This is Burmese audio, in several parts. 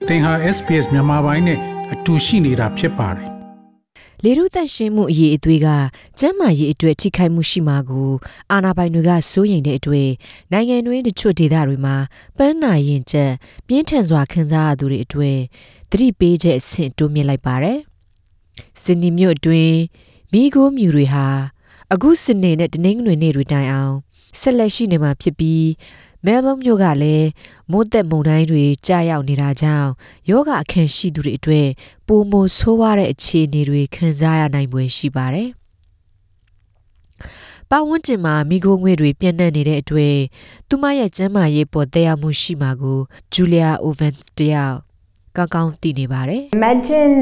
သင်ဟာ SPS မြန်မာပိုင်းနဲ့အတူရှိနေတာဖြစ်ပါတယ်လေရုသက်ရှင်မှုအရေးအသွေးကကျန်းမာရေးအတွက်ထိခိုက်မှုရှိမှာကိုအာဏာပိုင်တွေကစိုးရိမ်တဲ့အတွေ့နိုင်ငံတွင်းတချို့ဒေသတွေမှာပန်းနာရင်ကျက်ပြင်းထန်စွာခံစားရသူတွေအတွေ့သတိပေးချက်အဆင့်တိုးမြင့်လိုက်ပါတယ်။စင်နီမြို့အတွင်းမိခိုးမြူတွေဟာအခုစနေနဲ့တနင်္ဂနွေနေ့တွေတိုင်အောင်ဆက်လက်ရှိနေမှာဖြစ်ပြီးမဲလ်ဘုန်းမြို့ကလည်းမိုးသက်မုန်တိုင်းတွေကြာရောက်နေတာကြောင့်ယောဂအခန့်ရှိသူတွေအတွက်ပိုမိုဆိုးဝါးတဲ့အခြေအနေတွေခံစားရနိုင်ဖွယ်ရှိပါတယ်။ပတ်ဝန်းကျင်မှာမိခိုးငွေ့တွေပြန့်နှံ့နေတဲ့အတွက်သူမရဲ့ကျန်းမာရေးပေါ်သက်ရောက်မှုရှိမှာကိုဂျူလီယာအိုဗန်စ်တယောက်ကောင်းသိနေပါတယ်။ Imagine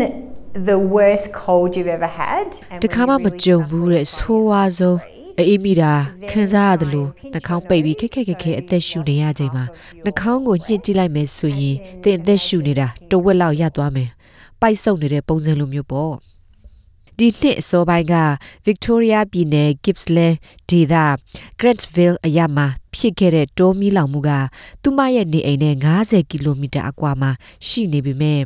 the worst cold you've ever had. တခါမှမကြုံဘူးတဲ့ဆိုးဝါးဆုံးအေးမိတာခံစားရတယ်လို့နှာခေါင်းပိတ်ပြီးခက်အသက်ရှူနေရချိန်မှာနှာခေါင်းကိုညှစ်ကြည့်လိုက်မယ်ဆိုရင်သင်အသက်ရှူနေတာတဝက်လောက်ရသွားမယ်ပိုက်ဆုပ်နေတဲ့ပုံစံလိုမျိုးပေါ့ဒီနှစ်အစောပိုင်းက Victoria ပြည်နယ် Gippsland ဒေသ Grantsville အရပ်မှာဖြစ်ခဲ့တဲ့တောမီးလောင်မှုကသူမရဲ့နေအိမ်နဲ့50ကီလိုမီတာအကွာမှာရှိနေပေမဲ့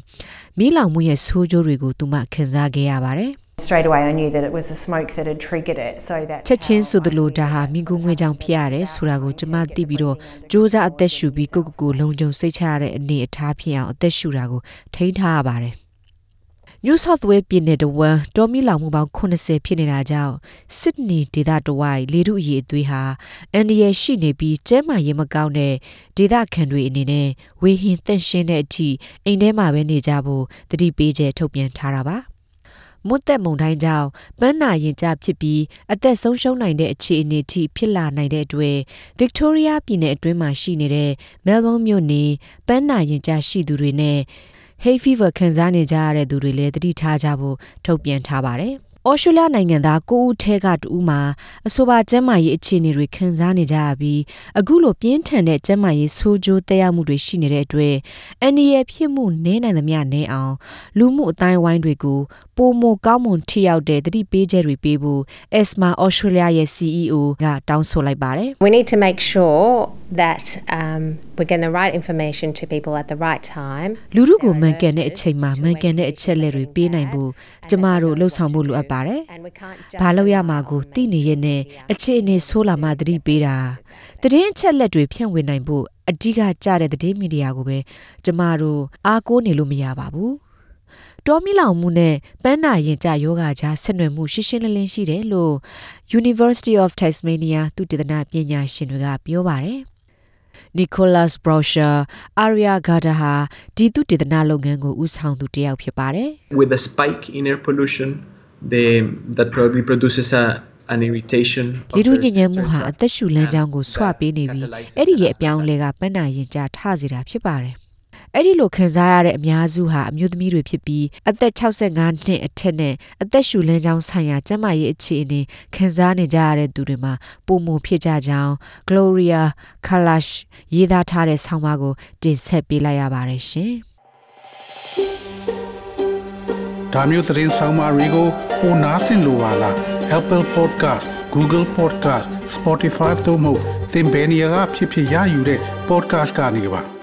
မီးလောင်မှုရဲ့ဆိုးကျိုးတွေကိုသူမခံစားခဲ့ရပါတယ်Straight away I knew that it was the smoke that had triggered it so that ချက်ချင်းဆိုသလိုဒါဟာမိကူးငွေကြောင့်ဖြစ်ရတယ်ဆိုတာကိုကျွန်မသိပြီးတော့စူးစမ်းအသက်ရှူပြီးကိုလုံခြုံစိတ်ချရတဲ့အနေအထားဖြစ်အောင်အသက်ရှူတာကိုထိန်းထားရပါတယ်New South Wales ပြည်နယ်တဝန်းတောမီလောင်မှုပေါင်း80ဖြစ်နေတာကြောင့် Sydney ဒေသတဝိုက်လေထုအရေးအသွေးဟာအန္တရာယ်ရှိနေပြီးကျန်းမာရေးမကောင်းတဲ့ဒေသခံတွေအနေနဲ့ဝေဟင်သန့်ရှင်းတဲ့အထိအိမ်ထဲမှာပဲနေကြဖို့သတိပေးချက်ထုတ်ပြန်ထားတာပါမွတ်သက်မုန်တိုင်းကြောင့်ပန်းနာရင်ကျဖြစ်ပြီးအသက်ဆုံးရှုံးနိုင်တဲ့အခြေအနေထိဖြစ်လာနိုင်တဲ့အတွက် Victoria ပြည်နယ်အတွင်းမှာရှိနေတဲ့ Melbourne မြို့နေပန်းနာရင်ကျရှိသူတွေနဲ့hay fever ခံစားနေကြရတဲ့သူတွေလည်းသတိထားကြဖို့ထုတ်ပြန်ထားပါတယ်။ဩစတြေးလျနိုင်ငံသား9ဦးထဲက2ဦးမှာအဆိုပါကျန်းမာရေးအခြေအနေတွေခံစားနေကြရပြီးအခုလိုပြင်းထန်တဲ့ကျန်းမာရေးဆိုးကျိုးသက်ရောက်မှုတွေရှိနေတဲ့အတွက်အန္တရာယ်ဖြစ်မှုနည်းနိုင်သမျှနည်းအောင်လူမှုအတိုင်းအဝိုင်းတွေကိုပိုမိုကောင်းမွန်ထိရောက်တဲ့သတိပေးချက်တွေပေးဖို့ ESMA Australia ရဲ့ CEO ကတောင်းဆိုလိုက်ပါတယ်။ We need to make sure that we're getting the right information to people at the right time. လူတို့ကိုမှန်ကန်တဲ့အချိန်မှာမှန်ကန်တဲ့အချက်လက်တွေပေးနိုင်ဖို့ကျမတို့လှုပ်ဆောင်ဖို့လိုအပ်ပါတယ်။ဘာလို့ရမှာကိုသိနေရဲ့နဲ့အခြေအနေဆိုးလာမှသတိပေးတာသတင်းအချက်လက်တွေဖြန့်ဝေနိုင်ဖို့အဓိကကျတဲ့သတင်းမီဒီယာကိုပဲကျမတို့အားကိုးနေလို့မရပါဘူး။တောမီလောင်မှုနဲ့ပန်းနာရင်ကျယောဂကြားဆက်နွယ်မှုရှင်းလင်းရှိတယ်လို့ University of Tasmania သုတေသနပညာရှင်တွေကပြောပါတယ်။ Nicholas Browsher Aria Gada ဟာဒီသုတေသနလုပ်ငန်းကိုဦးဆောင်သူတစ်ယောက်ဖြစ်ပါတယ်။ With the spike in air pollution that probably produces an irritation လေထုညစ်ညမ်းမှုဟာအသက်ရှူလမ်းကြောင်းကိုဆွပေးနေပြီးအဲ့ဒီရဲ့အပြောင်းလဲကပန်းနာရင်ကျထစေတာဖြစ်ပါတယ်အဲ့ဒီလိုခံစားရတဲ့အများစုဟာအမျိုးသမီးတွေဖြစ်ပြီးအသက်65နှစ်အထက်နဲ့အသက်ရှူလမ်းကြောင်းဆိုင်ရာကျန်းမာရေးအခြေအနေခံစားနေကြရတဲ့သူတွေမှာပုံမှန်ဖြစ်ကြကြောင်း Gloria Kalash ရေးသားထားတဲ့ဆောင်းပါးကိုတင်ဆက်ပေးလိုက်ရပါတယ်ရှင်ဒါမျိုးသတင်းဆောင်မတွေကိုပိုနားဆင်လိုပါလား Apple Podcast Google Podcast Spotify တို့မှာသင်ပင်ရာဖြစ်ရယူတဲ့ podcast ကနေပါ